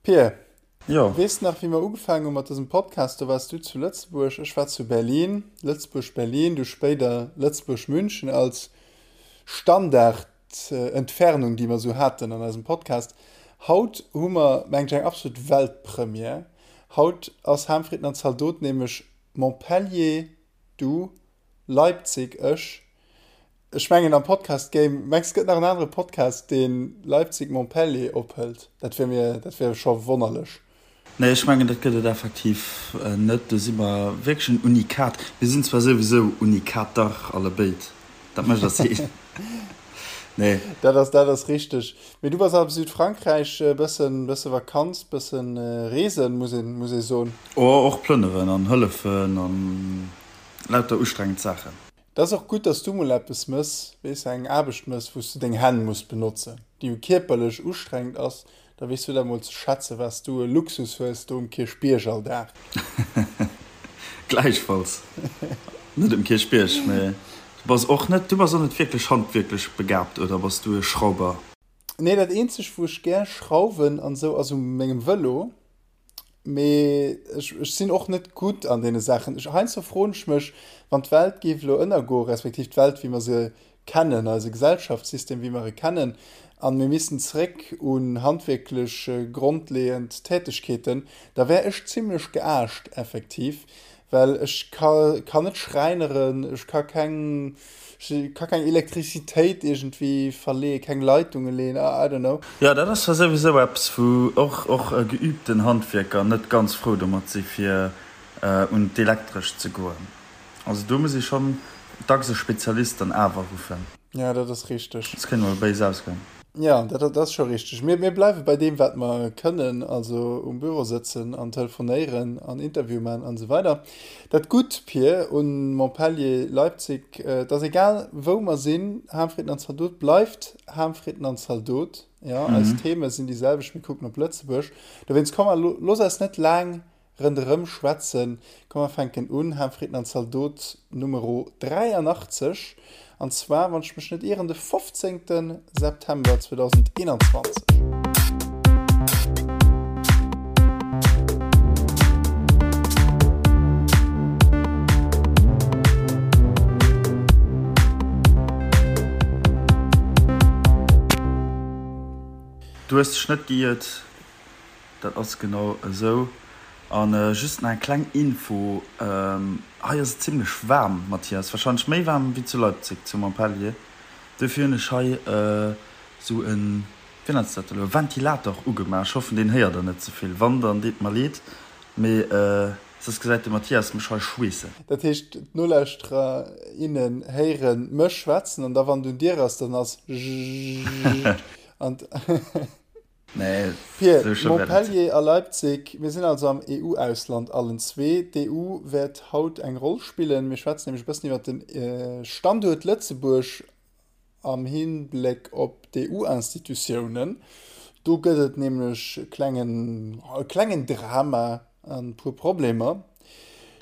Pir, Jo. Weess de nach, wéi mer ugefaangen hu mat dësem Podcast? Do waars du zu Lëtzebuerg, ech war zu Berlin. Lëtzebuerg-Berlin, du spéider Lëtzebuerg-München als Standardentfernung, déi mer esou haten an eisem Podcast. Haut hu mer, mengen ech, eng absolut Weltpremière. Haut ass Ham, Fritten an Zaldot nämlech Montpellier, du, Leipzig, ech. Ech mengen am Podcast Game, mengs gëtt nach en anere Podcast deen Leipzig Montpellier ophëlt? Dat wier mir, dat wier scho wonnerlech. Nee, ech mengen dat gëtt et effektiv net. Do si mer wierklech en Unikat. Mir sinn zwar souwisou Unikater allebéid, dat mécht eis een. Nee. Dat ass, dat ass richteg. Mee du bass am Südfrankräich, e bëssen, bësse Vakanz, bëssen Reesen, muss een, muss ee soen. Oh, och plënneren an hëllefen an lauter ustrengend Saachen. Et ass och gutt, dass du mol eppes mëss, weess, eng Aarbecht mëss, wou s du deng Hänn muss benotzen, déi jo kierperlech ustrengend ass, da weess du dat mol ze schätzen, wat s du e Luxus hues do um Kierchbierg all Dag. Gläichfalls. Net um Kierchbierg, mee du bass och net, du bass och net wierklech handwierklech begabt, oder bass du e Schrauber? Nee, dat eenzegt, wou ech gär schrauwen an esou, ass u mengem Vëlo. Mee ech, ech sinn och net gutt an deene Saachen. Ech, heiansdo froen ech mech, wann d'Welt géif elo ënnergoen, respektiv d'Welt, wéi mer se kennen, eise Gesellschaftssystem, wéi mer e kennen, a mir missten zeréck un handwierklech grondleeënd Tätegkeeten, da wär ech zimlech geaascht, effektiv, well ech ka, kann net schreineren, ech ka keng, ech ka keng Elektrizitéit iergendwéi verleeën, keng Leitunge leeën, I don't know. Jo, dat ass zwar souwisou eppes, wou och och geübten Handwierker net ganz frou domat si fir un d'Elektrescht ze goen. Also do muss ee schonn dacks e Spezialist dann awer ruffen. Jo, dat ass richteg. Soss kéint mol béis ausgoen. Jo, dat ass scho richteg. Mir, mir bleiwe bei deem, wat mer kënnen, also um Büro sëtzen an telefonéieren an Interview maachen an esou weider. Dat Gutt, Pir, un Montpellier, Leipzig, et ass egal, wou mer sinn, Ham, Fritten an Zaldot bleift Ham, Fritten an Zaldot. Jo, eis Theme sinn déi selwecht, mir kucken op Lëtzebuerg. Dowéinst, komm, looss eis net laang Rënderëm schwätzen. Komm mer fänken un, Ham, Fritten an Zaldot Numero 83, an zwar, wann ech mech net ieren, de 15. September 2021. Du hues dech net geiert. Dat ass genau esou. An just nach eng kleng Info, hei ass et zimlech waarm, Mathias, wahrscheinlech méi waarm wéi zu Leipzig, zu Montpellier. Dofir hunn ech hei esou en, wéi nennt s dat elo, Ventilator ugemaach. Ech hoffen deen héiert der net ze vill, wann dann deet mer leed, mee soss gesäit de Mathias mech hei schweessen. Dat heescht d'Nolauschterer, innen héiere mech schwätzen an da wann et un dir ass, dann ass jjjjjjjjjjjjjjj an. Nee, Pir, sou schlëmm wär dat. Montpellier a Leipzig, mir sinn also am EU-Ausland allen zwee. D'EU wäert haut eng Roll spillen. Mir schwätzen nämlech e bëssen iwwer de Standuert Lëtzebuerg am Hinbléck op d'EU-Institutiounen. Do gëtt et nämlech e klengen, e klengen Drama an e puer Problemer.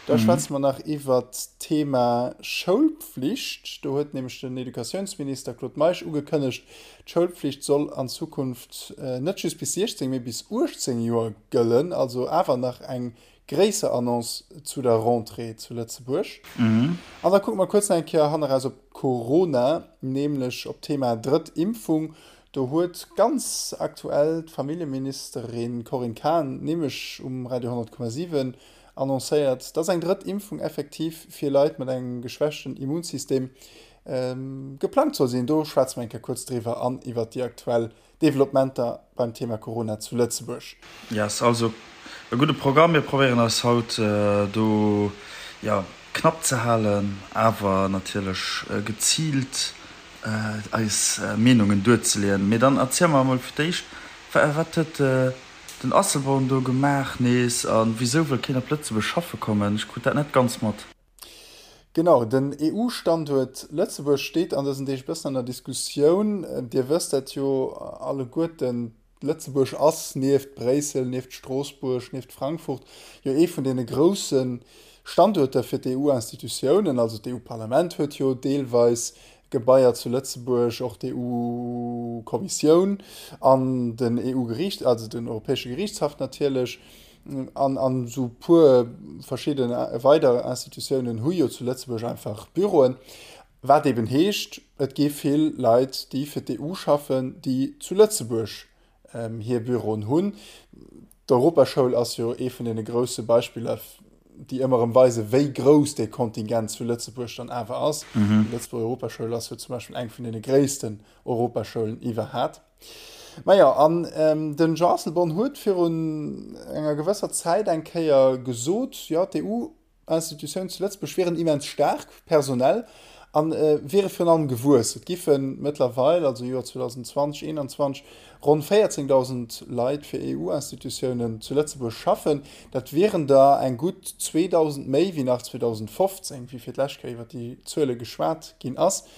Da schwätze mer nach iwwert d'Thema Schoulpflicht. Do huet nämlech den Educatiounsminister Claude Meisch ugekënnegt, d'Schoulpflicht soll an Zukunft net just bis 16, mee bis 18 Joer gëllen. Also awer nach eng gréisser Annonce zu der Rentrée zu Lëtzebuerg. An da kucke mer kuerz nach eng Kéier hanneraus op Corona, nämlech op d'Thema drëtt Impfung. Do huet ganz aktuell d'Familljeministerin Corinne Cahen nämlech um Radio 100,7 annoncéiert, dass eng drëtt Impfung effektiv fir Leit mat engem geschwächten Immunsystem geplangt soll sinn. Do schwätze mer eng Kéier kuerz driwwer an iwwert déi aktuell Developpementer beim Thema Corona zu Lëtzebuerg. Yes, also e gudde Programm. Mir probéieren eis haut do jo knapp ze halen, awer natierlech geziilt eis Meenungen duerzeleeën. Mee dann erziel mer emol fir d'éischt, wat huet den Asselborn do gemaach nees a wisou wëll keen op Lëtzebuerg schaffe kommen? Ech krut dat net ganz mat. Genau, den EU-Standuert Lëtzebuerg steet an dësen Deeg e bëssen an der Diskussioun. Dir wësst dat jo alleguerten, Lëtzebuerg ass nieft Bréissel, nieft Stroossbuerg, nieft Frankfurt jo ee vun deene grousse Standuerter fir d'EU-Institutiounen. Also d'EU-Parlament huet jo deelweis. Gebaier zu Lëtzebuerg, och d'EU-Kommissioun an den EU-Geriicht, also den Europäesche Geriichtshaff natierlech, an an esou puer verschidde weider Institutiounen hu jo zu Lëtzebuerg einfach Büroen. Wat eben heescht, et gi vill Leit, déi fir d'EU schaffen, déi zu Lëtzebuerg hir Büroen hunn. D'Europaschoul ass jo ee vun deene grousse Beispiller, déi ëmmer erëm weisen, wéi grouss dee Kontingent zu Lëtzebuerg dann awer ass. Déi Lëtzebuerger Europaschoul ass jo zum Beispill eng vun deene gréissten Europaschoulen iwwerhat. Majo, an den Jean Asselborn huet virun enger gewësser Zäit eng Kéier gesot, jo, d'EU Institutiounen zu Lëtzebuerg wieren immens staark personell a wiere virun allem gewuess. Et giffe mëttlerweil, also Joer 2020, 2021, ronn 14.000 Leit fir EU-Institutiounen zu Lëtzebuerg schaffen. Dat wieren der eng gutt 2.000 méi wéi nach 2015, wéi fir d'lescht Kéier iwwer déi Zuele geschwat ginn ass.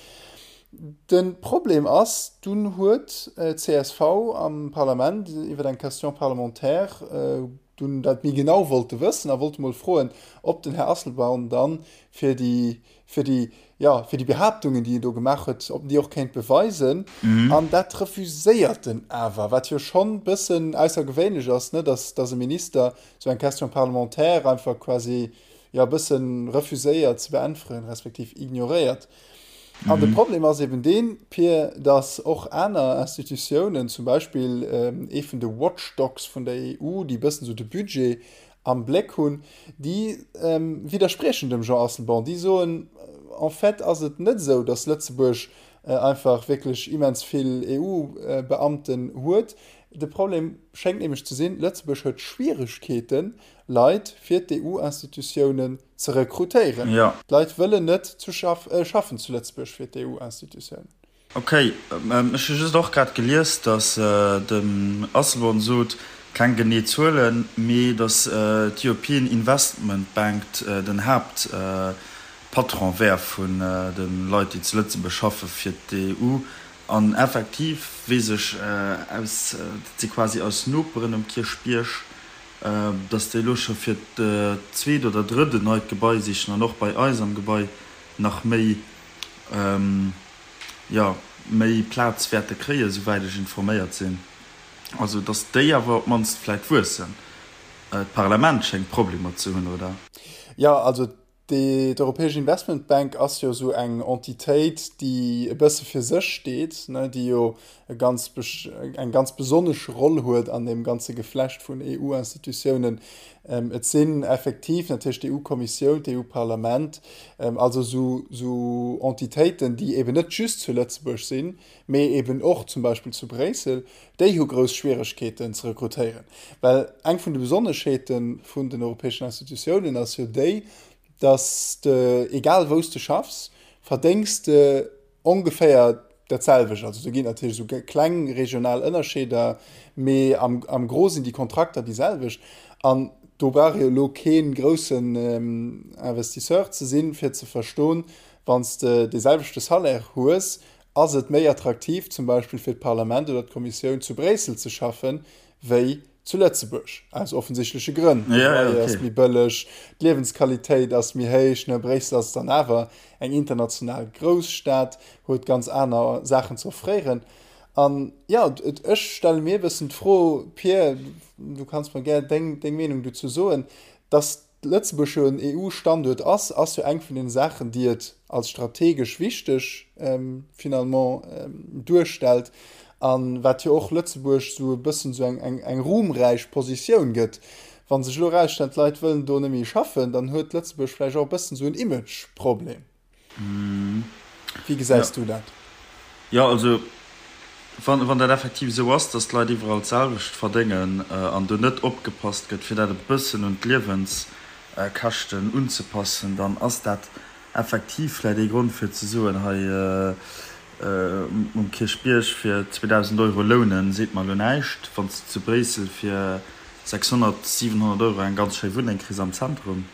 De Problem ass, dunn huet d'CSV am Parlament iwwer eng Question parlementaire dunn dat méi genau wollte wëssen a wollte mol froen, ob den Här Asselborn dann fir déi, fir déi, jo, fir déi Behaaptungen, déi en do gemaach huet, ob en déi och kéint beweisen. An dat refuséiert en awer, wat jo schonn e bëssen aussergewéinlech ass, ne, dass, dass e Minister esou eng Question parlementaire einfach quasi, jo, e bësse refuséiert ze beäntweren, respektiv ignoréiert. An de Problem ass eben deen, Pir, datt och aner Institutiounen, zum Beispill ee vun de Watchdogs vun der EU, déi e bëssen esou de Budget am Bléck hunn, déi widderspriechen dem Jean Asselborn. Déi soen, en fait ass et net esou, datt Lëtzebuerg einfach wierklech immens vill EU-Beamten huet. De Problem schéngt nämlech ze sinn, Lëtzebuerg huet Schwieregkeeten, Leit fir d'EU-Institutiounen ze rekrutéieren. D'Leit wëllen net zu schaffen zu Lëtzebuerg fir d'EU-Institutiounen. Ok, ech hu just och grad gelies, datt den Asselborn sot, keng genee Zuelen, mee datt d'European Investment Bank den Haaptpatron wär vun de Leit, déi zu Lëtzebuerg schaffe fir d'EU. An effektiv weess ech aus, dat si quasi eis Noperen um Kierchbierg, dass déi elo scho fir d'zweet oder drëtt en neit Gebai sichen an och bei eis am Gebai nach méi, jo, méi Plaz wäerte kréien, souwäit ech informéiert sinn. Also dass déi awer op d'mannst vläicht wuessen. D'Parlament schéngt Problemer ze hunn, oder? Jo, also D'Europäesch Investmentbank ass jo esou eng Entitéit, déi e bësse fir sech steet, déi jo e ganz, eng ganz besonnesch Roll huet an deem ganze Geflecht vun EU-Institutiounen. Et sinn effektiv natierlech d'EU-Kommissioun, d'EU-Parlament, also esou Entitéiten, déi eben net just zu Lëtzebuerg sinn, mee eben och zum Beispill zu Bréissel, déi hu grouss Schwieregkeeten ze rekrutéieren. Well eng vun de Besonneschheete vun den europäeschen Institutiounen ass jo déi, dass de, egal wou s de schaffs, verdéngs de ongeféier dat selwecht. Also do ginn et natierlech esou kleng regional Ënnerscheeder, mee am, am Gros sinn déi Kontrakter déi selwecht. An do brauch ee jo elo kee groussen Investisseur ze sinn, fir ze verstoen, wann s de dee selwechte Salaire hues, ass et méi attraktiv zum Beispill fir d'Parlament oder d'Kommissioun zu Bréissel ze schaffen, wéi zu Lëtzebuerg, aus offensichtleche Grënn. De Loyer ass méi bëlleg, d'Liewensqualitéit ass méi héich. Ne, Bréissel ass dann awer eng international Grousstad, huet ganz aner Saachen ze offréieren. An jo, ech stelle mir e bëssen d'Fro, Pir, du kanns mer gär deng Meenung dozou soen, dass Lëtzebuerg jo en EU-Standuert ass, ass jo eng vun den Saachen, déi et als strategesch wichteg finalement duerstellt a wat jo och Lëtzebuerg esou e bëssen esou eng eng ruhmräich Positioun gëtt. Wa sech elo erausstellt, d'Leit wëllen do net méi schaffen, dann huet Lëtzebuerg vläicht och e bëssen esou en Imageproblem. Wéi gesäis du dat? Jo, also wann dat effektiv esou ass, datt d'Leit iwwerall d'selwecht verdéngen an do net opgepasst gëtt, fir dat e bëssen un d'Liewenskäschten unzepassen, dann ass dat effektiv vläicht ee Grond fir ze soen, hei um Kierchbierg fir 2.000 Euro lounen, seet mer elo näischt, wann s de zu Bréissel fir 600, 700 Euro eng ganz schéi Wunneng kriss am Zentrum.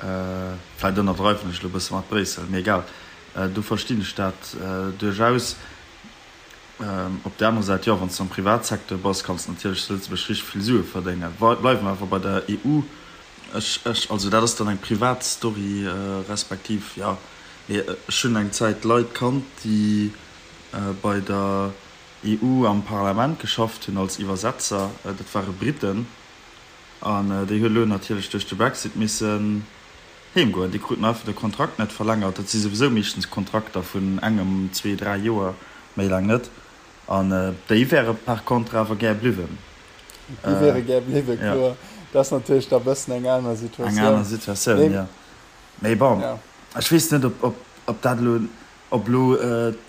Vläit ënnerdreiwen ech elo e bësse mat Bréissel, mee egal, do verstinn ech dat duerchaus. Op där anerer Säit, jo, wann s de am Privatsecteur bass, kanns de natierlech zu Lëtzebuerg richteg vill Sue verdéngen. Bleiwe mer awer bei der EU. Ech, ech, also dat ass dann eng privat Story, respektiv, jo. Mee ech hunn eng Zäit Leit kannt, déi bei der EU am Parlament geschafft hunn als Iwwersetzer. Dat ware Briten. An déi hu elo natierlech duerch de Brexit missen heem goen. Déi kruten einfach de Kontrakt net verlängert. Dat si souwisou meeschtens Kontrakter vun engem, zwee, dräi Joer, méi laang net. An déi wäre par contre awer gär bliwwen. Déi wäre gär bliwwen, kloer. Dat ass natierlech da bëssen eng aner Situatioun. Eng aner Situatioun, jo. Mee bon, ech weess net, ob dat elo, ob elo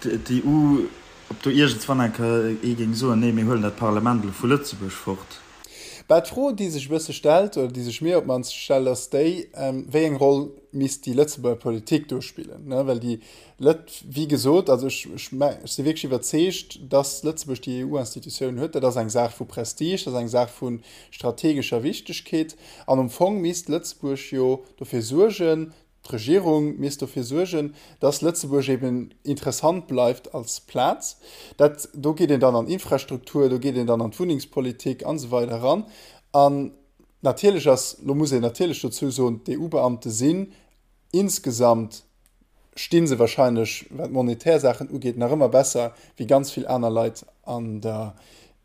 d'EU, ob do iergendswann eng Kéier ee géing soen, nee, mir huelen dat Parlament elo vu Lëtzebuerg fort. Bah, d'Fro, déi sech e bësse stellt, oder déi sech mir op d'mannst stellt, ass déi, Wéi eng Roll misst déi Lëtzebuerger Politik do spillen? Ne, well déi Lët, wéi gesot, also ech, ech, ech si wierklech iwwerzeegt, dass Lëtzebuerg déi EU-Institutiounen huet. Dat ass eng Saach vu Prestige, dat ass eng Saach vu strategescher Wichtegkeet. An am Fong misst Lëtzebuerg jo dofir suergen, D'Regierung misst dofir suergen, dass Lëtzebuerg eben interessant bleift als Plaz. Dat, do geet een dann an Infrastruktur, do geet een dann an d'Wunnengspolitik an esou weider eran. An natierlech ass, lo muss een natierlech dozou soen, d'EU-Beamte sinn insgesamt, sti se wahrscheinlech, wat monetär Saachen ugeet, nach ëmmer besser wéi ganz vill aner Leit an der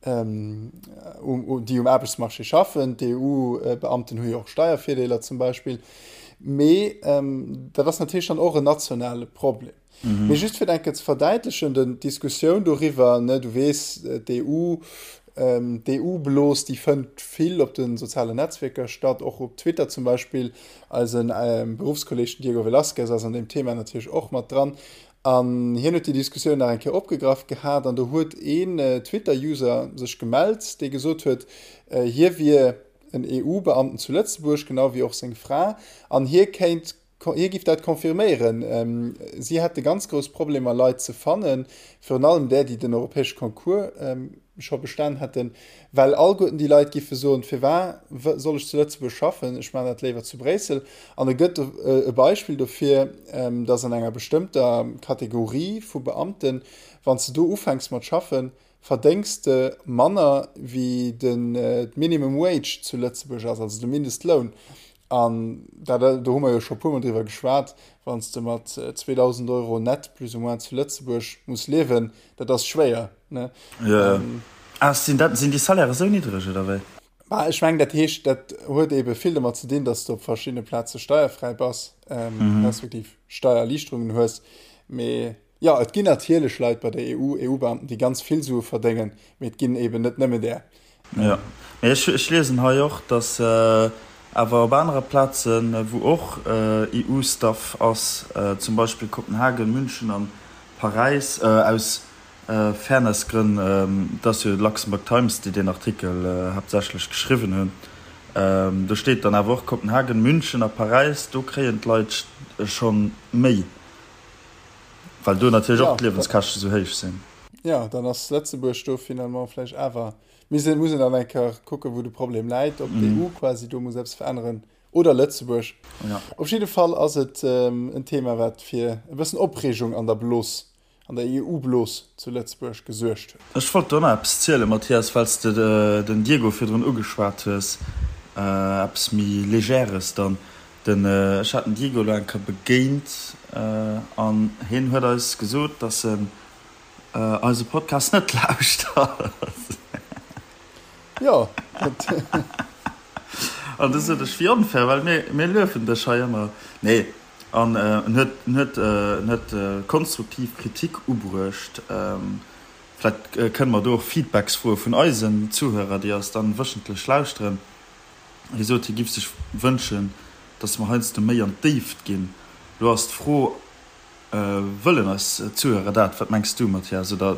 déi um Aarbechtsmarché schaffen. D'EU-Beamten hu jo och Steiervirdeeler zum Beispill. Mee dat ass natierlech dann och en nationale Problem. Mee just fir et eng Kéier ze verdäitlechen, den, d'Diskussioun doriwwer, ne, du weess, d'EU, d'EU-Blos, déi fënnt vill op de sozialen Netzwierker statt, och op Twitter zum Beispill. Eisen Beruffskolleeg, den Diego Velázquez, ass an deem Thema natierlech och mat dran. An hien huet déi Diskussioun nach eng Kéier opgegraff gehat an do huet een Twitter-User sech gemellt, dee gesot huet, hie wier en EU-Beamten zu Lëtzebuerg, genau wéi och seng Fra, an hie kéint, hie giff dat confirméieren, si hätte ganz grouss Problemer Leit ze fannen, virun allem där, déi den europäesche Concours scho bestan hätten, well allguerten déi Leit giffe soen, firwar soll ech zu Lëtzebuerg schaffen, ech maachen dat léiwer zu Bréissel. An e gëtt e Beispill dofir, datt an enger bestëmmter Kategorie vu Beamten, wann s de do ufänks mat schaffen, verdéngs de manner wéi den d'Minimum Wage zu Lëtzebuerg ass, also de Mindestloun. An dat, do hu mer jo scho e puermol driwwer geschwat, wann s de mat 2.000 Euro net plus ou moins zu Lëtzebuerg muss liewen, dat ass schwéier, ne? Jo, jo. Ah, sinn dat, sinn déi Salaire esou niddreg, oder wéi? Bah, ech mengen, dat heescht, dat huet eebe vill domat ze dinn, datt s de op verschiddene Plaze steierfräi bass, respektiv Steiererliichterungen hues. Mee jo, et ginn natierlech Leit bei der EU, EU-Beamten, déi ganz vill Sue verdéngen, mee et ginn eeben net nëmme där. Jo, mee ech, ech liesen hei och, datt awer op anere Plazen, wou och EU-Staff ass, zum Beispill Kopenhagen, München an Paräis, aus Fairness-Grënn, et ass jo d'Luxembourg Times, déi deen Artikel haaptsächlech geschriwwen hunn, do steet dann awer och Kopenhagen, München a Paräis, do kréien d'Leit scho méi, well do natierlech och d'Liewenskäschte sou héich sinn. Jo, dann ass Lëtzebuerg do finalement vläicht awer, muss een dann eng Kéier kucken, wou de Problem läit, ob d'EU quasi do muss eppes veränneren oder Lëtzebuerg. Op jidde Fall ass et en Thema, wat fir e bëssen Opreegung an der Blos, an der EU-Blos zu Lëtzebuerg gesuergt huet. Ech wollt do nach eppes zielen, Mathias, well s de den Diego virdrun ugeschwat hues, eppes méi Légères dann. Den, ech hat den Diego elo eng Kéier begéint an hien huet eis gesot, dass en eise Podcast net lauschtert. Jo. An du sot ech, wéi onfair, well mir, mir luefen dech hei ëmmer. Nee, an en huet, en huet, en huet konstruktiv Kritik ubruecht. Vläicht kënne mer do och Feedbacks froe vun eisen Zuhörer, déi eis dann wëchentlech lauschteren. Hie sot, hie giff sech wënschen, datt mer heiansdo méi an d'Déift ginn. Lo ass d'Fro, Wëllen eis Zuhörer dat? Wat mengs du, Mathias? Oder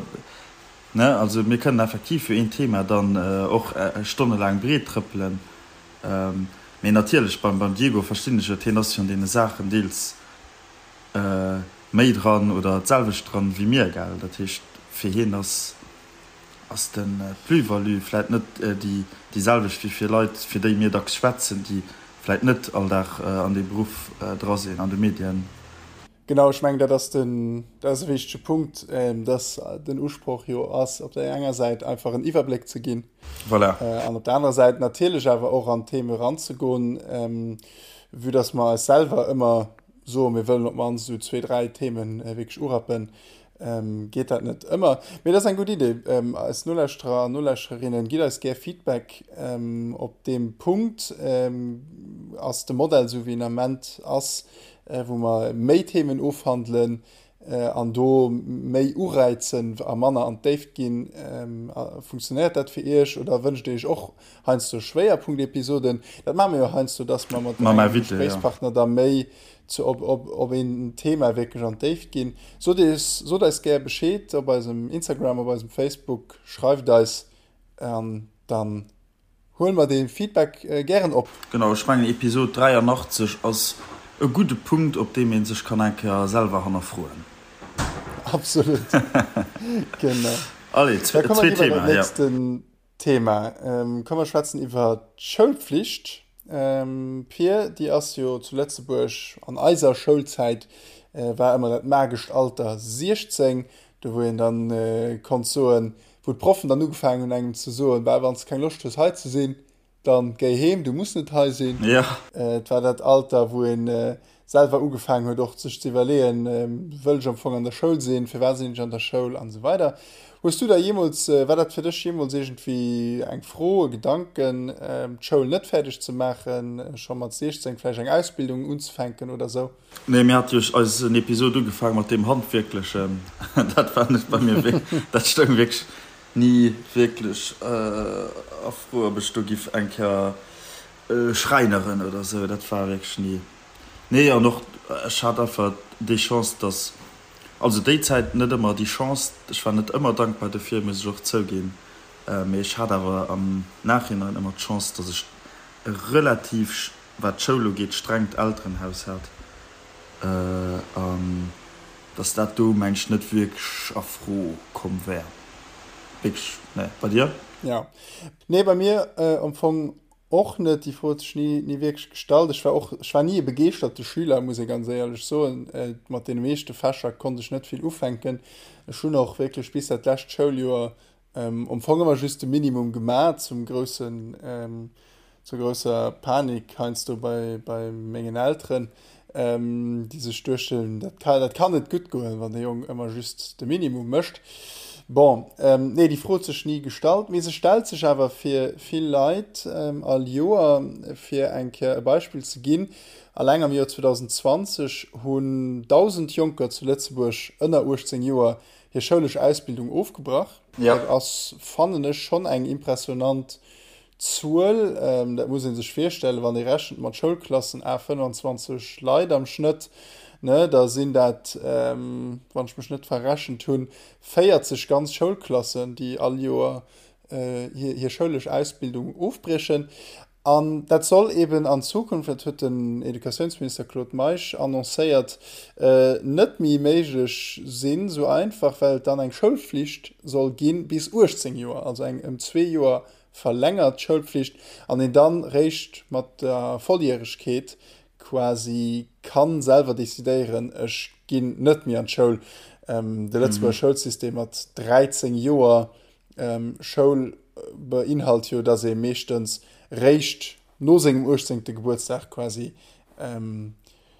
Ne, also mir kënnen effektiv jo een Thema dann och stonnelaang breet trëppelen. Mee natierlech, beim beim Diego verstinn ech et, hien ass jo an deene Saachen deels méi dran oder d'selwecht dran wéi mir, gell. Dat heescht, fir hien ass ass de Plus-value vläit net déi déi selwecht wéi fir Leit, fir déi mir dacks schwätzen, déi vläit net all Dag an deem Beruff dra sinn, an de Medien. Genau, ech mengen, dat ass den, dat ass e wichtege Punkt, dass den Usproch jo ass, op där enger Säit einfach en Iwwerbléck ze ginn. Voilà. An op der anerer Säit natierlech awer och an d'Theme eranzegoen, vue dass mer eis selwer ëmmer. soen, mir wëllen op d'mannst esou zwee, dräi Themen wierklech urappen, geet dat net ëmmer. Mee dat ass eng gutt Idee. Eis Nolauschterer an Nolauschtererinnen, gitt eis gär Feedback op deem Punkt. Ass de Modell esou wéi en Ament ass, wou mer méi Themen ofhandelen an do méi uräizen a manner an d'Déift ginn, funktionéiert dat fir Iech oder wënscht Dir Iech och heiansdo Schwéierpunktepisoden? Dat maache mir jo heiansdo, dass mer mat engem Gespréichspartner da méi zu op, op, op een Thema wierklech an d'Déift ginn. Sot eis, sot eis gär Bescheed op eisem Instagram, op eisem Facebook, schreift eis an dann Huele mer dee Feedback gären op. Genau, ech mengen Episod 83 ass e gudde Punkt op deem ee sech kann eng Kéier selwer hannerfroen. Absolut, genau. Allez, Da komme zweet mer iwwer dat Thema, ja. nächsten Thema. Komm mer schwätzen iwwer d'Schoulpflicht. Pir, déi ass jo zu Lëtzebuerg an eiser Schoulzäit war ëmmer dat magescht Alter 16, do wou een dann konnt soen, Wou d'Proffen dann ugefaangen hunn engem ze soen, Bah, wann s de keng Loscht hues hei ze sinn, dann géi heem, du muss net hei sinn. Ja. Et war dat Alter, wou ee selwer ugefaangen huet och sech ze iwwerleeën, Wëll ech am Fong an der Schoul sinn, firwat sinn ech an der Schoul an esou weider. Hues du da jeemools, war dat fir dech jeemools iergendwéi eng Fro, e Gedanken, d'Schoul net fäerdeg ze maachen, scho mat 16 vläicht eng Ausbildung unzefänken oder esou? Nee, mir hate jo eisen Episod ugefaang mat deem Handwierklechen. Dat war net bei mir wierk, dat stoung wierklech ni wierklech a Fro, ob ech do giff eng Kéier schräineren oder esou. Dat war wierklech ni. Nee, an och ech hat einfach déi Chance, dass, also déi Zäit net ëmmer déi Chance, ech war net ëmmer dankbar dofir, muss ech och zouginn, mee ech hat awer am Nachhinein ëmmer d'Chance, dass ech e relativ wat d'Schoul ugeet, strengt Elterenhaus hat an dass dat do, meng ech, net wierklech a Fro komm wär. Wierklech, nee. Bei dir? Jo. Nee, bei mir am Fong och net. Déi Fro huet sech ni, ni wierklech gestallt. Ech war och, ech war ni e begeeschterte Schüler, muss ee ganz éierlech soen. Mat deene meeschte Fächer konnt ech net vill ufänken. Ech hunn och wierklech bis dat lescht Schouljoer Am Fong ëmmer just de Minimum gemaat, zum groussen, zur grousser Panik heiansdo bei, bei mengen Elteren, déi sech duechten, dat ka, dat kann net gutt goen, wann de Jong ëmmer just de Minimum mécht. Bon, nee, déi Fro huet sech ni gestallt, mee se stellt sech awer fir vill Leit all Joer. Fir eng Kéier e Beispill ze ginn, Alleng am Joer 2020 hunn 1.000 Jonker zu Lëtzebuerg ënner 18 Joer hir schoulesch Ausbildung ofgebrach. Ja. Dat ass, fannen ech, schonn eng impressionant Zuel. Dat muss ee sech virstellen, wann ee rechent mat Schoulklassen à 25 Leit am Schnëtt, ne, da sinn dat, wann ech mech net verrechent hunn, 40 ganz Schoulklassen, déi all Joer hir, hir schoulesch Ausbildung ofbriechen. An dat soll eben an Zukunft, dat huet den Educatiounsminister Claude Meisch annoncéiert, net méi méiglech sinn, esou einfach, well et dann eng Schoulflicht soll gi bis 18 Joer, also eng ëm zwee Joer verlängert Schoulpflicht, an een dann réischt mat der Volljäregkeet quasi ka selwer decidéieren, ech ginn net méi an d'Schoul. De Lëtzebuerger Schoulsystem mat 13 Joer Schoul beinhalt jo, dass ee meeschtens réischt no sengem 18. Gebuertsdag quasi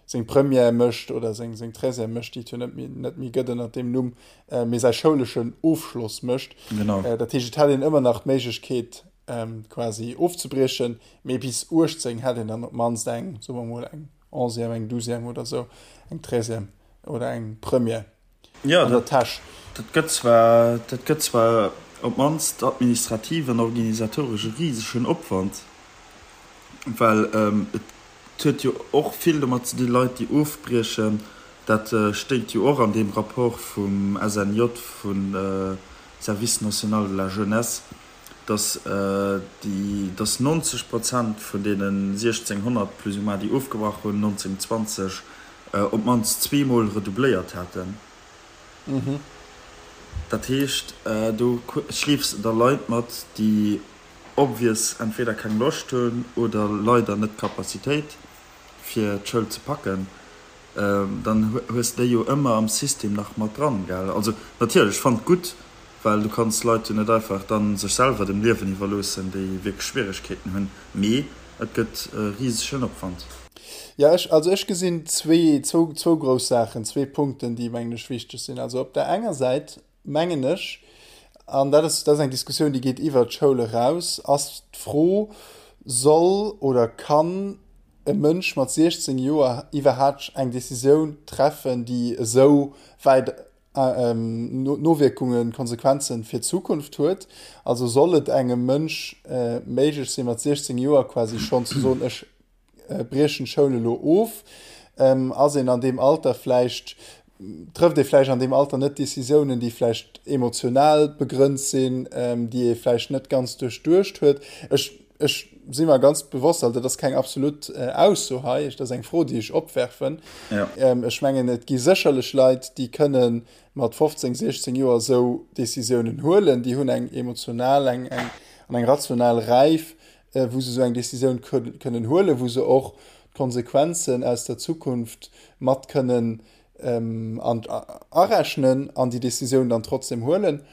seng Première mécht oder seng seng Treizième mécht, déi et jo net méi net méi gëtt ënner deem Numm, mee säi schouleschen Ofschloss mécht. Genau. Dat heescht, et hätt een ëmmer nach d'Méiglechkeet quasi ofzebriechen, mee bis 18 hätt een dann op d'mannst eng, soe mer mol, eng Onzième, eng Douzième oder sou, eng Treizième oder eng Première. Jo, an der Täsch. Dat gëtt zwar, dat gëtt zwar op d'mannst administrativ an organisatoresch e risegen Opwand, well et huet jo och vill domat ze dinn, Leit, déi ofbriechen, dat stéit jo och an deem Rapport vum SNJ, vum Service national de la jeunesse, dass déi, dass 90 Prozent vun deenen 1.600 plus ou moins, déi ofgebrach hunn 1920, op d'mannst zweemol redoubléiert haten. Dat heescht, do schleefs de da Leit mat, déi obvious entweder keng Loscht hunn oder leider net d'Capacitéit, fir d'Schoul ze packen. Dann hues de déi jo ëmmer am System nach mat dran, gell? Also natierlech, ech fannen et gutt. Well du kanns d'Leit jo net einfach dann sech selwer dem Liewen iwwerloossen, déi wierklech Schwieregkeeten hunn. Mee et gëtt e risegen Opwand. Jo, ech, also ech gesinn zwee, zwou, zwou grouss Saachen, zwee Punkten, déi, mengen ech, wichteg sinn. Also op der enger Säit mengen ech, an dat ass, dat ass eng Diskussioun, déi geet iwwert d'Schoul eraus, ass d'Fro, Soll oder kann e Mënsch mat 16 Joer iwwerhaapt eng Decisioun treffen, déi esou wäit Nowierkungen, Konsequenzen fir d'Zukunft huet. Also soll et engem Mënsch méiglech sinn, mat 16 Joer quasi schonn ze soen, ech briechen d'Schoul elo of. Ass een an deem Alter vläicht, trëfft ee vläicht an deem Alter net Decisiounen, déi vläicht emotional begrënnt sinn, déi ee vläicht net ganz duerchduecht huet. Ech Ech si mer ganz bewosst, also dat ass keng absolut Ausso hei, dat ass eng Fro, déi ech opwerfen. Ja. Ech mengen, et gi sécherlech Leit, déi kënne mat 15, 16 Joer esou Decisiounen huelen. Déi hunn eng emotional eng, eng, an eng rational Räif, wou se esou eng Decisioun kënnen huelen, wou se och d'Konsequenzen aus der Zukunft mat kënnen an arechnen an déi Decisioun dann trotzdem huelen?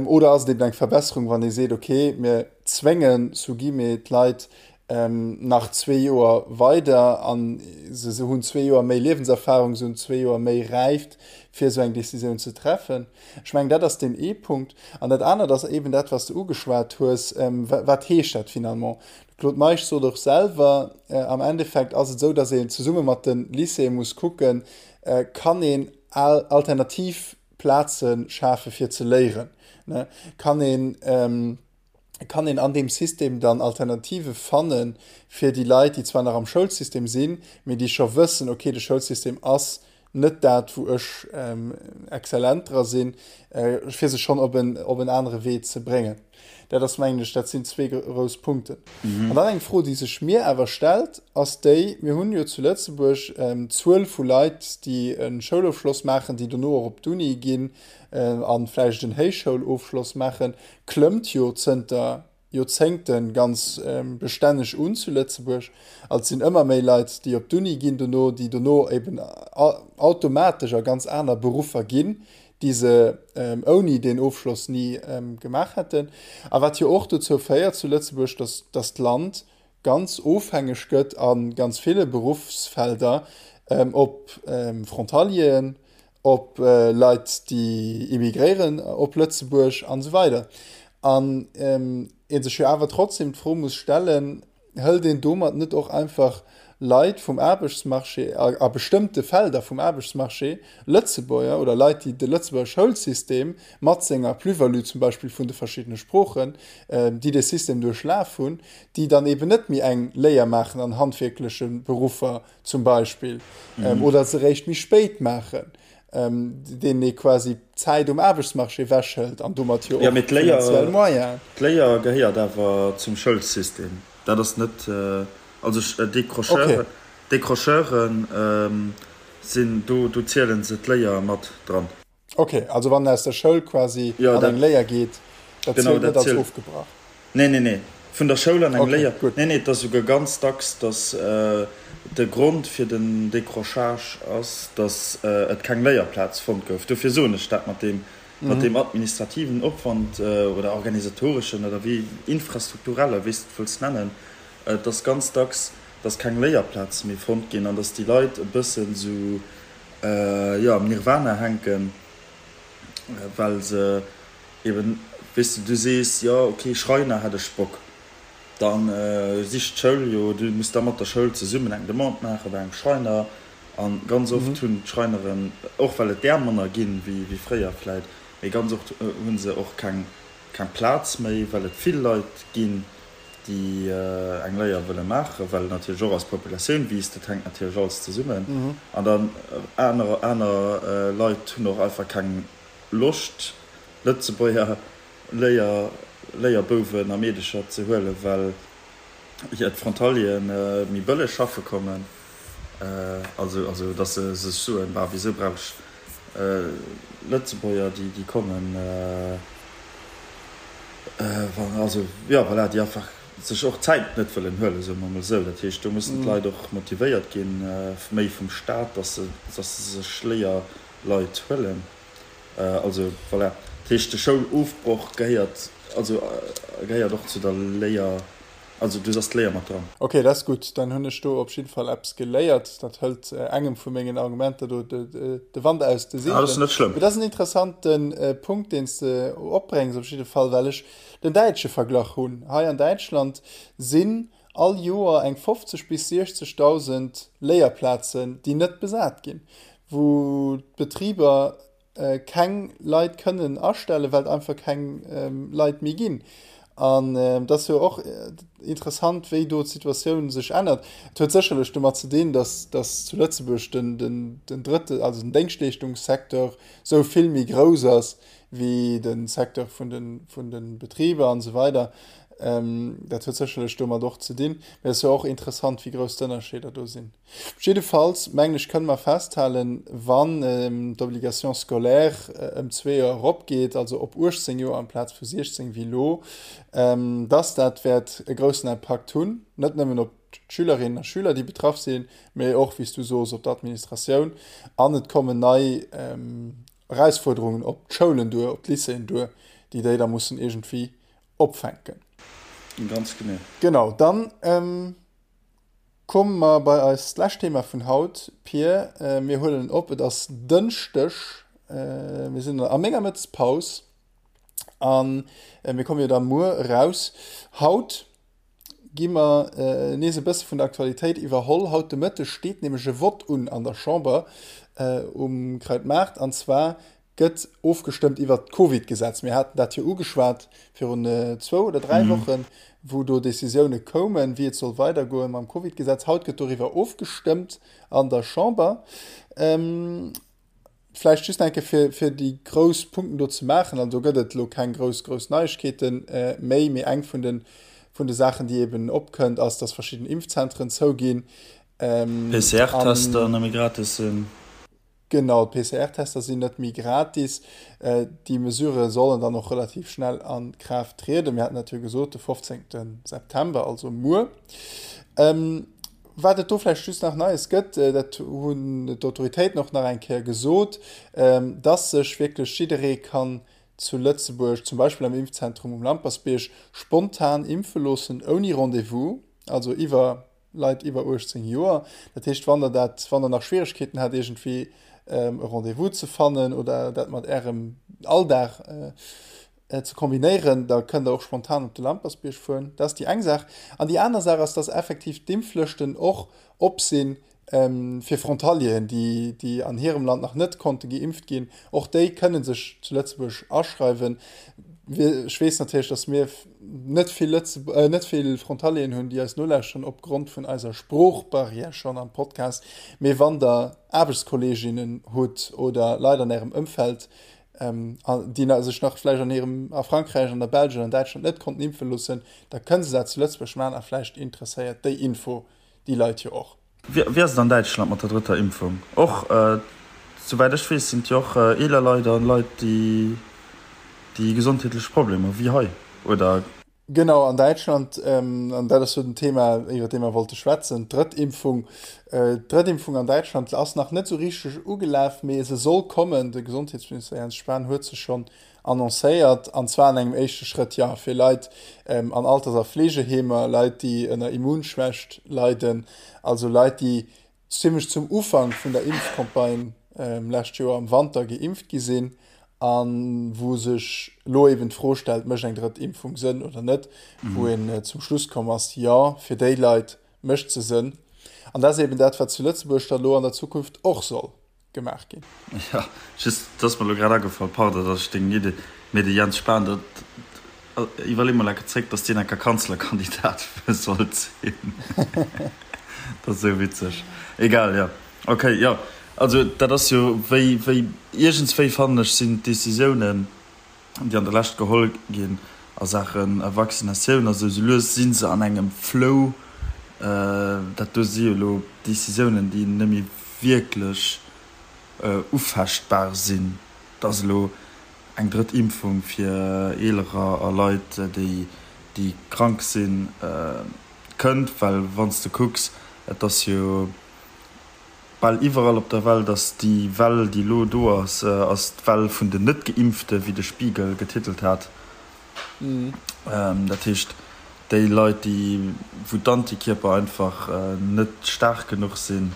Oder ass et eben eng Verbesserung, wann ee seet, okay, mir zwéngen sous guillemets d'Leit nach zwee Joer weider an se hunn zwee Joer méi Liewenserfahrung, se hunn zwee Joer méi Räift, fir esou eng Decisioun ze treffen? Ech mengen, dat ass deen ee Punkt. An dat anert ass eben dat, wat s de ugeschwat hues, Wat heescht dat finalement? Claude Meisch sot och selwer, am Endeffekt ass et esou, datt een zesumme mat de Lycéeë muss kucken, kann een alternativ Plaze schafe fir ze léieren, kann een, kann een an deem System dann Alternative fanne fir déi Leit, déi zwar nach am Schoulsystem sinn, mee déi scho wëssen, okay, de Schoulsystem ass net dat, wou ech exzellent dra sinn, fir se schonn op en, op en anere Wee ze bréngen. Dat ass, mengen ech, dat sinn zwee grouss Punkten. An dann eng Fro, déi sech mir awer stellt, ass déi, Mir hunn jo zu Lëtzebuerg d'Zuel vu Leit, déi e Schoulofschloss maachen, déi dono och op d'Uni ginn a vläicht en Héichschoulofschloss maachen, klëmmt jo zënter Joerzéngte ganz bestänneg un zu Lëtzebuerg. Also et sinn ëmmer méi Leit, déi op d'Uni ginn dono, déi dono eben automatesch a ganz aner Beruffer ginn, déi se ouni deen Ofschloss ni gemaach hätten. A wat jo och dozou féiert zu Lëtzebuerg, dass dass d'Land ganz ofhängeg gëtt a ganz ville Beruffsfelder op Frontalieren, op Leit déi immigréieren op Lëtzebuerg an esou weider. An ee sech jo awer trotzdem d'Fro muss stellen, hëlt een domat net och einfach Leit vum Aarbechtsmarché, a bestëmmte Felder vum Aarbechtsmarché, Lëtzebuerger oder Leit, déi de Lëtzebuerger Schoulsystem mat senger Plus-value zum Beispill vun de verschiddene Sproochen, déi dee System duerchlaf hunn, déi dann eben net méi eng Léier maachen an handwierkleche Beruffer zum Beispill, oder se eréischt méi spéit maachen, deenen ee quasi d'Zäit um Aarbechtsmarché ewechhëlt an domat jo och finanziell Moyenen. D'Léier gehéiert awer zum Schoulsystem. Dat ass net, also Décrocheuren, Décrocheuren sinn do, do ziele se d'Léier mat dran. Ok, also wann en aus der Schoul quasi an eng Léier geet, dat zielt net als ofgebrach? Nee, nee, nee, vun der Schoul an eng Léier, nee, nee, et ass esouguer ganz dacks, datt de Grond fir den Décrochage ass, datt et keng Léierplaz fonnt gouf. Dofir soen ech dat mat deem, mat deem administrativen Opwand oder organisatoreschen oder wéi infrastrukturelle, wéi s de et wëlls nennen. Et ass ganz dacks, datt keng Léierplaze méi fonnt ginn an datt déi Leit e bëssen esou, jo, am Nirvana hänken, well se eben, weess de, du sees, jo, ok, Schreiner hätt ech Bock, da sicht d'Schoul jo, du muss da mat der Schoul zesummen eng Demande maache bei engem Schreiner a ganz oft hunn d'Schreineren, och well et där manner ginn wéi fréier vläit, mee ganz oft hu se och keng Plaz méi, well et vill Leit ginn, déi eng Léier wëlle maachen, well natierlech och eis Populatioun wiisst, dat hänkt natierlech alles zesummen. An dann aner aner Leit hunn och einfach keng Loscht, Lëtzebuerger Léier Léierbouwen a Meedecher ze huelen, well jo d'Frontalieren méi bëlleg schaffe kommen. Also also datt se sech soen, Bah, wisou brauch ech Lëtzebuerger, déi déi kommen? Also, jo, voilà, déi einfach sech och d'Zäit net wëllen huelen, soe mer emol esou. Dat heescht, do mussen d'Leit och motivéiert ginn, méi vum Staat, dass se, dass se sech Léierleit huelen. Also, voilà. Dat heescht, de Schoulofbroch gehéiert, also gehéiert och zu der Léier, also do ass d'Léier mat dran. Ok, dat ass gutt. Dann hunn ech do op jidde Fall eppes geléiert. Dat hëlt engem vu mengen Argumenter do de Wand aus de Seegelen. Ah, dat ass net schlëmm. Mee dat ass en interessante Punkt, deen s de opbréngs op jidde Fall, well ech den däitsche Verglach hunn. Hei an Däitschland sinn all Joer eng 50 bis 60.000 Léierplazen, déi net besat ginn, wou d'Betriber keng Leit kënnen astellen, well et einfach keng Leit méi ginn. An et ass jo och interessant, wéi do d'Situatioun sech ännert. Et huet sécherlech domat ze dinn, datt, datt zu Lëtzebuerg den, den, den drëtte, also den Déngschtleeschtungssecteur esou vill méi grouss ass wéi de Secteur vun de, vun de Betriber an esou weider. Dat huet sécherlech domat och ze dinn. Mä et ass jo och interessant, wéi grouss d'Ënnerscheeder do sinn. Jiddefalls, mengen ech, kënne mer festhalen, wann d'Obligation scolaire ëm zwee Joer eropgeet, also op 18 Joer amplaz vu 16 wéi elo, dass dat wäert e groussen Impakt hunn, net nëmmen op d'Schülerinnen a Schüler, déi betraff sinn, mee och, wéi s du sos, op d'Administratioun. An et kommen nei Erausfuerderungen op d'Schoulen duer, op d'Lycéeën duer, déi déi da mussen iergendwéi opfänken. Ganz genee. Genau, dann Komme mer bei eist lescht Thema vun haut, Pir. Mir huelen op, et ass Dënschdeg, mir sinn a menger Mëttespaus a mir komme jo da muer eraus. Haut gi mer nees e bësse vun der Aktualitéit iwwerholl. Haut de Mëtteg steet nämlech e Vott un an der Chamber um Krautmaart, an zwar gëtt ofgestëmmt iwwert d'Covid-Gesetz. Mir haten dat jo ugeschwat virun zwou oder dräi Wochen, wou do Decisioune koumen, wéi et soll weidergoen mam Covid-Gesetz. Haut gëtt doriwwer ofgestëmmt an der Chamber. Vläicht just nach eng Kéier, fir, fir déi grouss Punkten do ze maachen. Also do gëtt et elo keng grouss, grouss Neiegkeete méi, mee eng vun de, vun de Saachen, déi eeben opkënnt, ass, dass verschidden Impfzentren zouginn. PCR-Tester net méi gratis sinn. Genau, d'PCR-Tester sinn net méi gratis. Déi Mesurë sollen dann och relativ schnell a Kraaft trieden. Mir haten dat jo gesot, de 15. September, also muer. Wat et do vläicht just nach Neies gëtt, dat hunn d'Autoritéiten och nach eng Kéier gesot, dass sech wierklech jidderee kann zu Lëtzebuerg, zum Beispill am Impfzentrum um Lampersbierg, spontan impfe loossen, ouni Rendez-vous, also iwwer Leit iwwer 18 Joer. Dat heescht, wann der dat, wann der nach Schwieregkeeten hat iergendwéi e Rendez-vous ze fannen oder dat mat Ärem Alldag ze kombinéieren, da kënnt der och spontan op de Lampersbierg fueren. Dat ass déi eng Saach. An déi aner Saach ass, dass effektiv d'Impflëschten och op sinn fir Frontalieren, déi, déi an hirem Land nach net konnte geimpft ginn. Och déi kënne sech zu Lëtzebuerg aschreiwen. Ech weess natierlech, dass mir net vill Lëtze net vill Frontalieren hunn, déi eis nolauschteren opgrond vun eiser Sproochbarrière schonn am Podcast. Mee wann der Aarbechtskolleeginnen hutt oder Leit an Ärem Ëmfeld, déi sech nach vläicht an hirem a Frankräich, an der Belsch oder an Däitschland net konnten impfe loossen, da kënne se dat zu Lëtzebuerg maachen a vläicht interesséiert déi Info déi Leit jo och. Wéi ass et an Däitschland mat der drëtter Impfung? Och souwäit ech weess sinn et jo och eeler Leit a Leit déi déi gesondheetlech Problemer hu wéi hei, oder? Genau, an Däitschland, an dat ass jo den Thema iwwer dee mer wollte schwätzen, d'drëtt Impfung. D'drëtt Impfung an Däitschland ass nach net esou richteg ugelaf, mee se soll kommen. De Gesondheetsminister Jens Spahn huet se schonn annoncéiert, an zwar an engem éischte Schrëtt, jo, fir Leit an Alters a Fleegeheemer, Leit, déi ënner Immunschwächt leiden, also Leit, déi zimmlech zum Ufank vun der Impfcampagne lescht Joer am Wanter geimpft gi sinn a wou sech elo eben d'Fro stellt, Mécht eng drëtt Impfung Sënn oder net? Wou een zum Schluss komm ass, Jo, fir déi Leit mécht se Sënn. An dat ass eben dat, wat zu Lëtzebuerg da lo an der Zukunft och soll gemaach ginn. Jo, just, et ass mer elo grad agefall, pardon, datt ech deng Idee, mee de Jens Spahn, dat, iwwerlee mol enke zréck, datt deen enker Kanzlerkandidat sollt sinn. Dat ass esou witzeg. Egal, jo. Ok, jo. Also dat ass jo wéi, wéi, iergendswéi fannen ech, sinn d'Décisiounen, déi an der Lescht geholl ginn a Saache Vaccinatioun a sou, sou lues si se an engem Flow. Dat do si jo elo Décisiounen, déi net méi wierklech ufechtbar sinn, dass elo eng drëtt Impfung fir Eelerer a Leit, déi krank sinn, kënnt. Well wann s de kucks, et ass jo. Bal iwwerall op der Welt ass déi Well, déi elo do ass, ass d'Well vun den Net-Geimpfte, wéi de Spiegel getitelt hat. Dat heescht, déi Leit, déi, wou d'Antikierper einfach net staark genuch sinn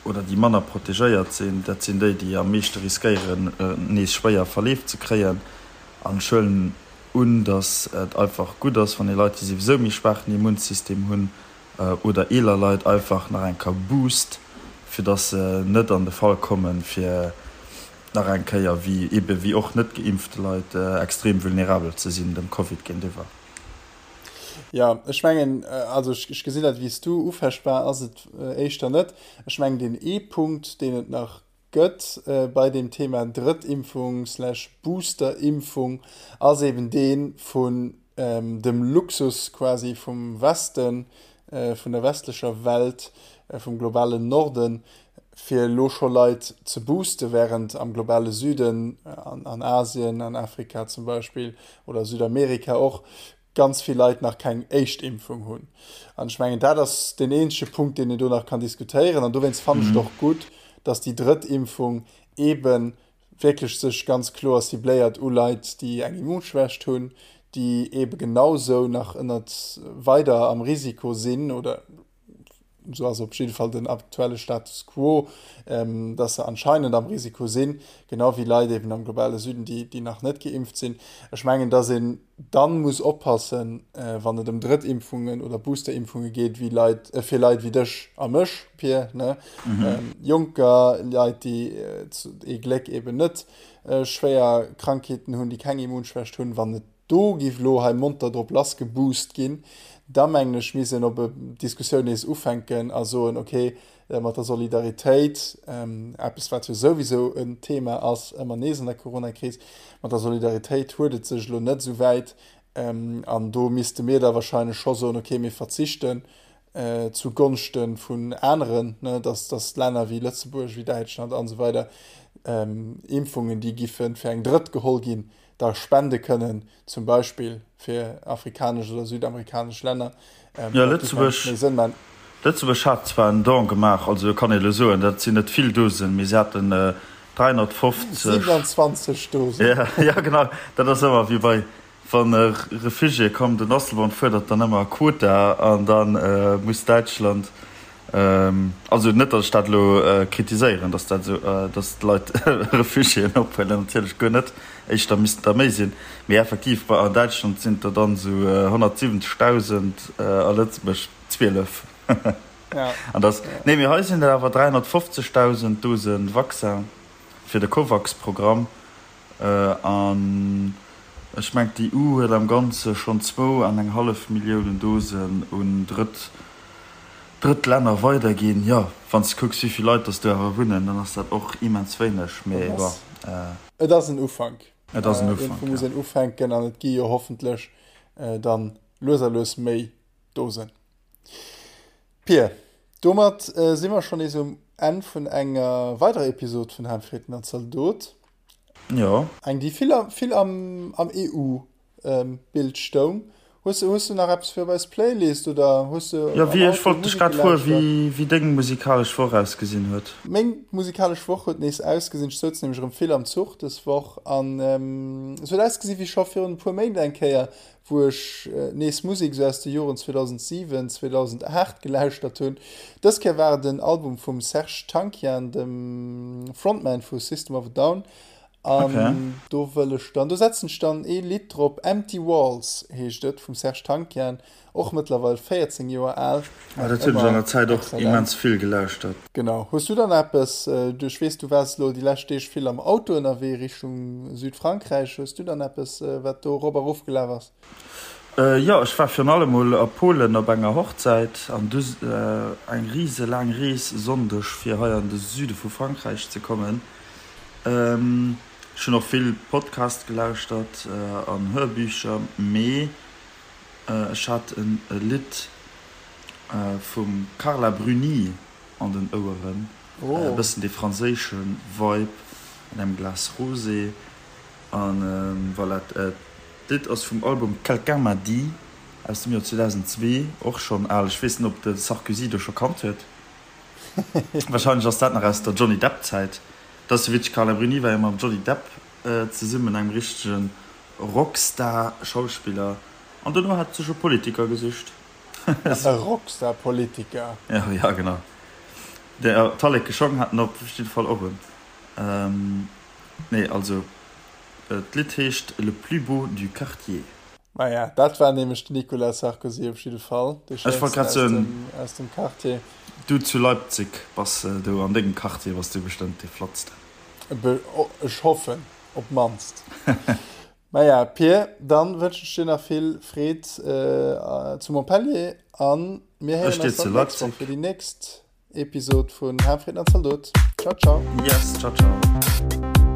oder déi manner protegéiert sinn, dat sinn déi, déi am meeschte riskéieren, nees schwéier Verleef ze kréien. An ech huelen un, datt et einfach gutt ass, wann ee Leit, déi souwisou méi schwaachen Immunsystem hunn, oder eeler Leit einfach nach eng Kéier boost, fir dass se net an de Fall kommen, fir nach eng Kéier, wéi ebe wéi och net geimpfte Leit, extrem vulnerabel ze sinn dem Covid géintiwwer. Jo, ech mengen, also ech gesinn dat wéi s du, ufechtbar ass et éischter net. Ech mengen, deen ee Punkt, deen et nach gëtt bei deem Thema Drëttimpfung slash Boosterimpfung, ass eben dee vun dem Luxus quasi vum Westen, vun der westlecher Welt, vum globalen Norden, fir elo scho Leit ze booste, während am globale Süden, an Asien, an Afrika zum Beispill oder Südamerika och, ganz vill Leit nach keng éischt Impfung hunn. An ech mengen, dat ass deen eenzege Punkt, deen een do nach kann diskutéieren. An dowéinst fannen ech et och gutt, dass déi drëtt Impfung eebe wierklech sech ganz kloer cibléiert u Leit, déi eng Immunschwächt hunn, déi eebe genausou nach ënnert weider am Risiko sinn oder esou ass op jidde Fall den aktuelle Status quo, dass se anscheinend am Risiko sinn, genau wéi Leit eben am globale Süden, déi, déi nach net geimpft sinn. Ech mengen, dass een dann muss oppassen, wann et ëm Drëttimpfungen oder Boosterimpfunge geet, wéi Leit, fir Leit wéi dech a mech, Pir, ne, Jonker, Leit, déi ee Gléck eben net schwéier Krankheeten hunn, déi keng Immunschwächt hunn, wann et Do giff elo hei monter drop lass geboost ginn. Da mengen ech misst een op e Diskussioun nees ufänken a soen, ok, mat der Solidaritéit, eppes wat jo souwisou en Thema ass ëmmer nees an der Coronakris, mat der Solidaritéit huet et sech elo net esou wäit an do misste mir da wahrscheinlech scho soen, ok, mir verzichten zu Gonschte vun aneren, dass dass Länner wéi Lëtzebuerg, wéi Däitschland an esou weider Impfungen, déi giffe fir eng Drëtt geholl ginn, da spende kënnen, zum Beispill fir afrikanesch oder südamerikanesch Länner. Jo, Lëtzebuerg, Lëtzebuerg hat zwar en Don gemaach, also kann ee elo soen, dat sinn net vill Dosen, mee se haten 350. 27 Dosen. Ja, ja genau, dat ass ëmmer wéi bei, wann e Refugié kommt, den Asselborn fuerdert dann ëmmer Quota an da muss Däitschland Also net, datt ech dat elo kritiséieren, datt dat esou, datt d'Leit Refugiéen ophuelen, natierlech guer net, éischter missten der méi sinn. Mee effektiv, bei an Däitschland sinn et der dann esou 170.000, a Lëtzebuerg 12. An datt, nee, mee hei sinn et awer 350.000 Dose Vaccin fir de Covax-Programm. An ech mengen, d'EU huet am Ganze schonn zwou an eng hallef Milliounen Dosen un Drëtt, drëtt Länner weiderginn. Jo, wann s de kucks, wéi vill Leit dass do awer wunnen, dann ass dat och immens wéineg. Mee bon. Et ass en Ufank. Et ass en Ufank, jo. Iergendwou muss een ufänken an et gi jo hoffentlech dann lues a lues méi Dosen. Pir, domat si mer schonn nees um Enn vun enger weiderer Episod vun Haanfritten an Zaldot. Jo. Eng, déi vill, vill am, am EU-Bild stoung. Hues de, hues de nach eppes fir op eis Playlist oder hues de Jo, wéi, ech wollt dech grad froen, wéi, wéi deng musikalesch Woch ausgesinn huet. Meng musikalesch Woch huet nees ausgesinn, ech souz nämlech erëm vill am Zuch dës Woch an es huet ausgesinn wéi scho virun e puer Méint eng Kéier, wou ech nees Musek esou aus de Joren 2007, 2008 gelauschtert hunn. Dës Kéier war et en Album vum Serj Tankian, dem Frontman vu System of a Down An okay. do wëll ech dann, do setzen ech dann ee Lidd drop, Empty Walls heescht et, vum Serj Tankian, och mëttlerweil 14 Joer al. Ah, dat hunn ech an der Zäit och immens vill gelauschtert. Genau. Hues du dann eppes, du, ech weess, du waars elo déi lescht Deeg vill am Auto ënnerwee Richtung Südfrankräich, hues du dann eppes, wat do erop a rof gelaf ass? Jo, ech war virun allem mol a Polen op enger Hochzäit an du eng rise laang Rees Sonndeg fir hei an de Süde vu Frankräich ze kommen. Ech hunn och vill Podcast gelauschtert an Hörbücher, mee ech hat e Lidd vum Carla Bruni an den Oueren, e bëssen dee franséische Vibe an engem Glas Rosé an voilà. D'Lidd ass vum Album Quelqu'un m'a dit. Aus dem Joer 2002, och schonn al. Ech weess net, ob de Sarkozy do scho kannt huet. Warscheinlech ass dat nach aus der Johnny Depp-Zäit. Dat ass jo witzeg, Carla Bruni war jo mam Johnny Depp zesummen, engem richtege Rockstar-Schauspiller. An dono hat sech e Politiker gesicht. E Rockstar-Politiker? Jo, jo, genau. Talleke Schong hat en op jidde Fall och un. Nee, also d'Lidd heescht Le plus beau du quartier. Maja, dat war nämlech den Nicolas Sarkozy op jidde Fall, dee Schéinsten aus dem Quartier. Du zu Leipzig bass do an dengem Quartier bass du bestëmmt dee flottsten. Ech hoffen op d'mannst. Maja Pir, dann wënschen ech dir nach vill Freed zu Montpellier an mir héieren eis dann d'nächst Woch fir déi nächst Episod vun Harmfrieden an Zaldot. Ciao ciao. Yes, ciao ciao.